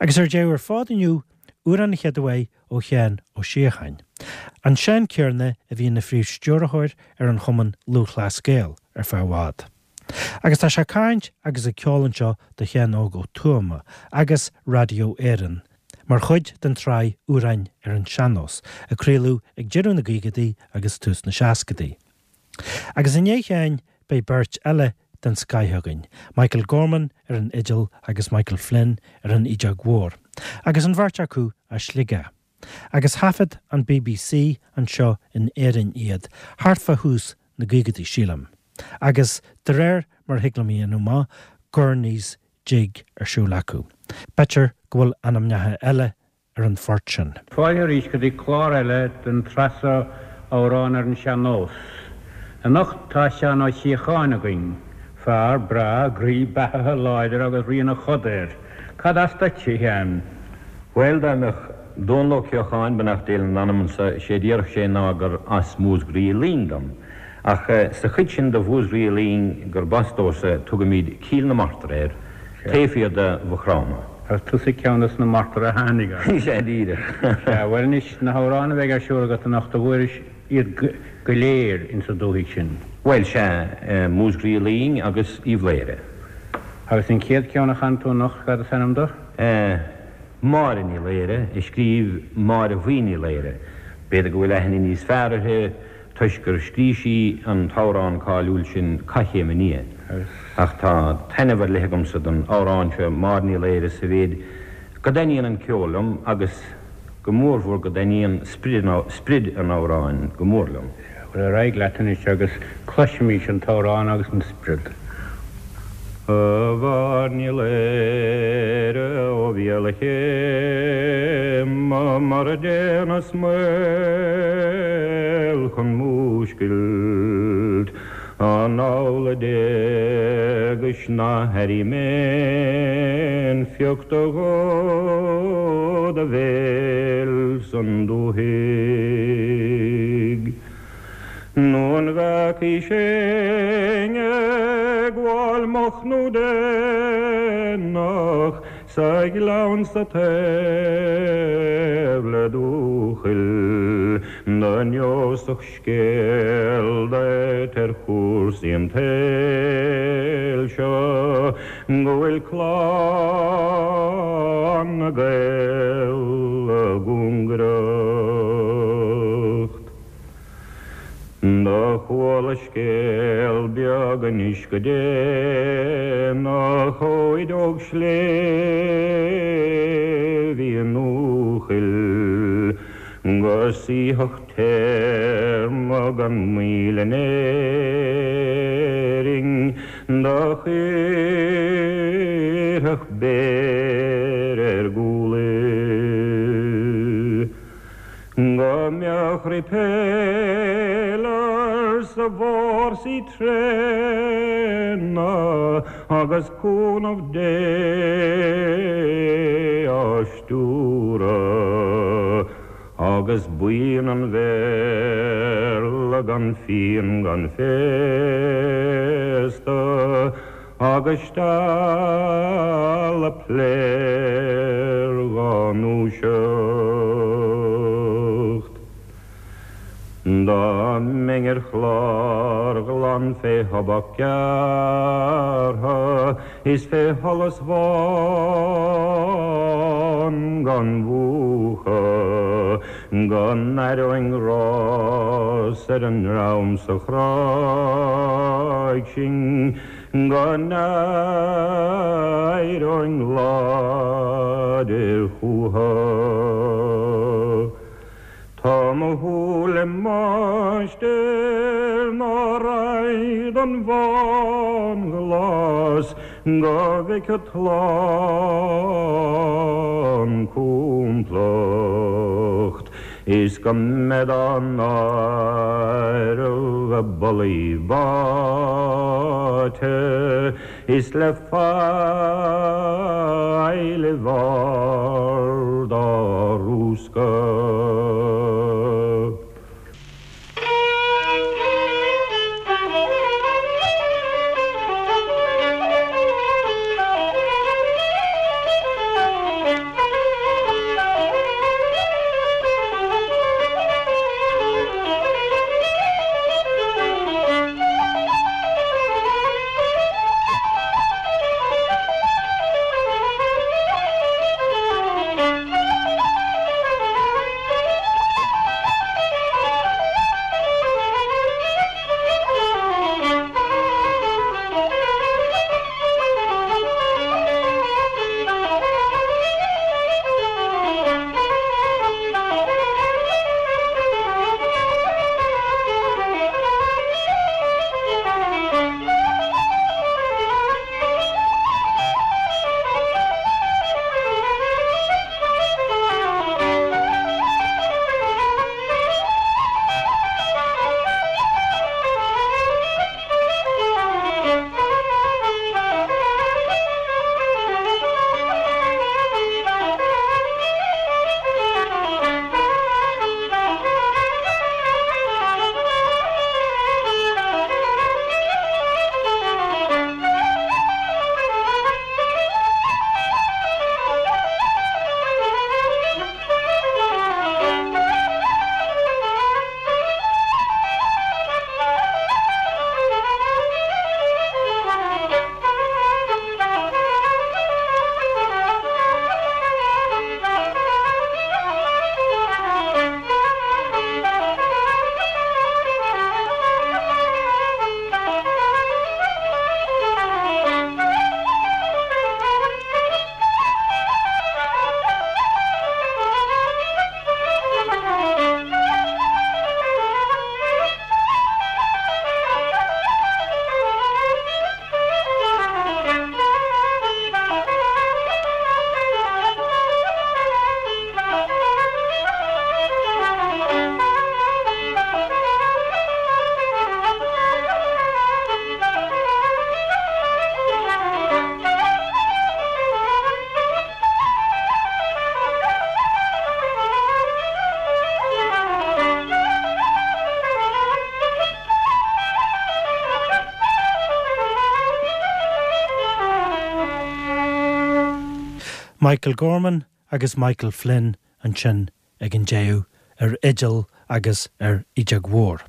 Agus ar deireadh ar fad inniu, amhrán an chéad uair ó Sheán Ó Síocháin, an Seán céanna a bhí ina phríomh-stiúrthóir ar an Chumann Lúthchleas Gael ar feadh i bhfad. Agus tá sé ag caint agus ag ceol anseo do Sheán Óg Ó Tuama agus Radio Éireann mar chuid den tsraith Amhráin ar an Sean-Nós a craoladh ag deireadh na gcaogaidí agus tús na seascadaí. Agus i ndiaidh Sheáin beidh beirt eile den scoith againn, Michael Gorman ar an fhidil agus Michael Flynn ar an fhídeog mhór, agus an bheirt acu as Sligeach. Agus thaifead an bbc anseo in Éirinn iad thart fá thús na gcaogaidí, sílim, agus de réir mar a thig liom a dhéanamh amach, Gurney's Jig ar siúl acu. B'fhéidir go bhfuil ainmneacha eile ar an phort sin. Fáilte arís go dtí clár eile den tsraith seo Amhráin ar an Sean-Nós. Anocht tá Seán Ó Síocháin againn, fear breá, groí beathaithe, láidir agus rian a choda air. Cad as duit, a Sheáin? Bhuel, dá mbeadh Dónall Ó Ceocháin, beannacht Dé lena anamsa, sé a déarfadh sé ná gur as Músgraí Luing dom. Ach sa chuid sin de Mhúsgraí Luing gurb as domhsa, tugaimid Cill na Martra air, taobh thiar de Mhaigh Chromtha. Agus tusa ceann des na Martraigh a tháinig as. Sea, díreach. Sea, bhuel anois, na hamhráin a bheidh ar siúl agat anocht, an bhfuairis iad go léir insa dúthaigh sin? Bhuel, sea, Músgraí Luing agus Uíbh Laoghaire. Agus an chéad cheann a chan tú anocht, cad is ainm dó? Máire Ní Laoire, a scríobh Máire Bhuí Ní Laoire. B'fhéidir go bhfuil aithne níos fearr uirthi toisc gur scrígh sí an t-amhrán cáiliúil sin Coiscéim Aniar. Ach tá taitneamh ar leith agamsa don amhrán seo, Máire Ní Laoire, sa mhéid go dtaitníonn an ceol liom agus go mórmhór go dtaitníonn sprid an amhráin go mór liom. Bhuel, ar aghaidh leat anois agus cloisimís an t-amhrán agus an sprid. A Mháire Ní Laoire ó bhéal a chéime mar a déanas maol chun múscailt An amhlaidh d'éagais ná hairím aon phioc de dhó do bhéil san dúthaigh. Nó an bhfeacaís éinne ag gabháil moch nó déanach sa ghleann sa taobh le Dúchoill do neosfadh scéal duit ar chúrsaí an tsaoil seo go bhfuil clann na nGael i gcúngaireacht. Do chuala scéal beag anois go déanach ó fhideog sléibhe i nDúchoill go suífeadh téarma gan mhoill in Éirinn do chuirfeadh béar ar gcúl í. Go mbeadh repealers i bhfórsaí tréana agus cúnamh Dé á stiúradh. Agus buíon an Bhéarla gan fíon gan féasta agus stealla pléar dhá ndúiseacht. Dá mbeinn ar chlár ghlan fé thobac gearrtha is fé sholas bhán gan mhúchadh, go n-aireoinn rás ar an ndream sa Chráig sin, go n-éireoinn láidir chúthu. Tá mo shúil i máistir ná raghaidh don bhánghlas go bhfeicfead slán complacht is go mbead á n-áireamh i bpollaí báite is le faill i bhfard á rúscadh. Michael Gorman agus Michael Flynn ansin ag an deireadh ar fhidil agus ar fhidheog mhór.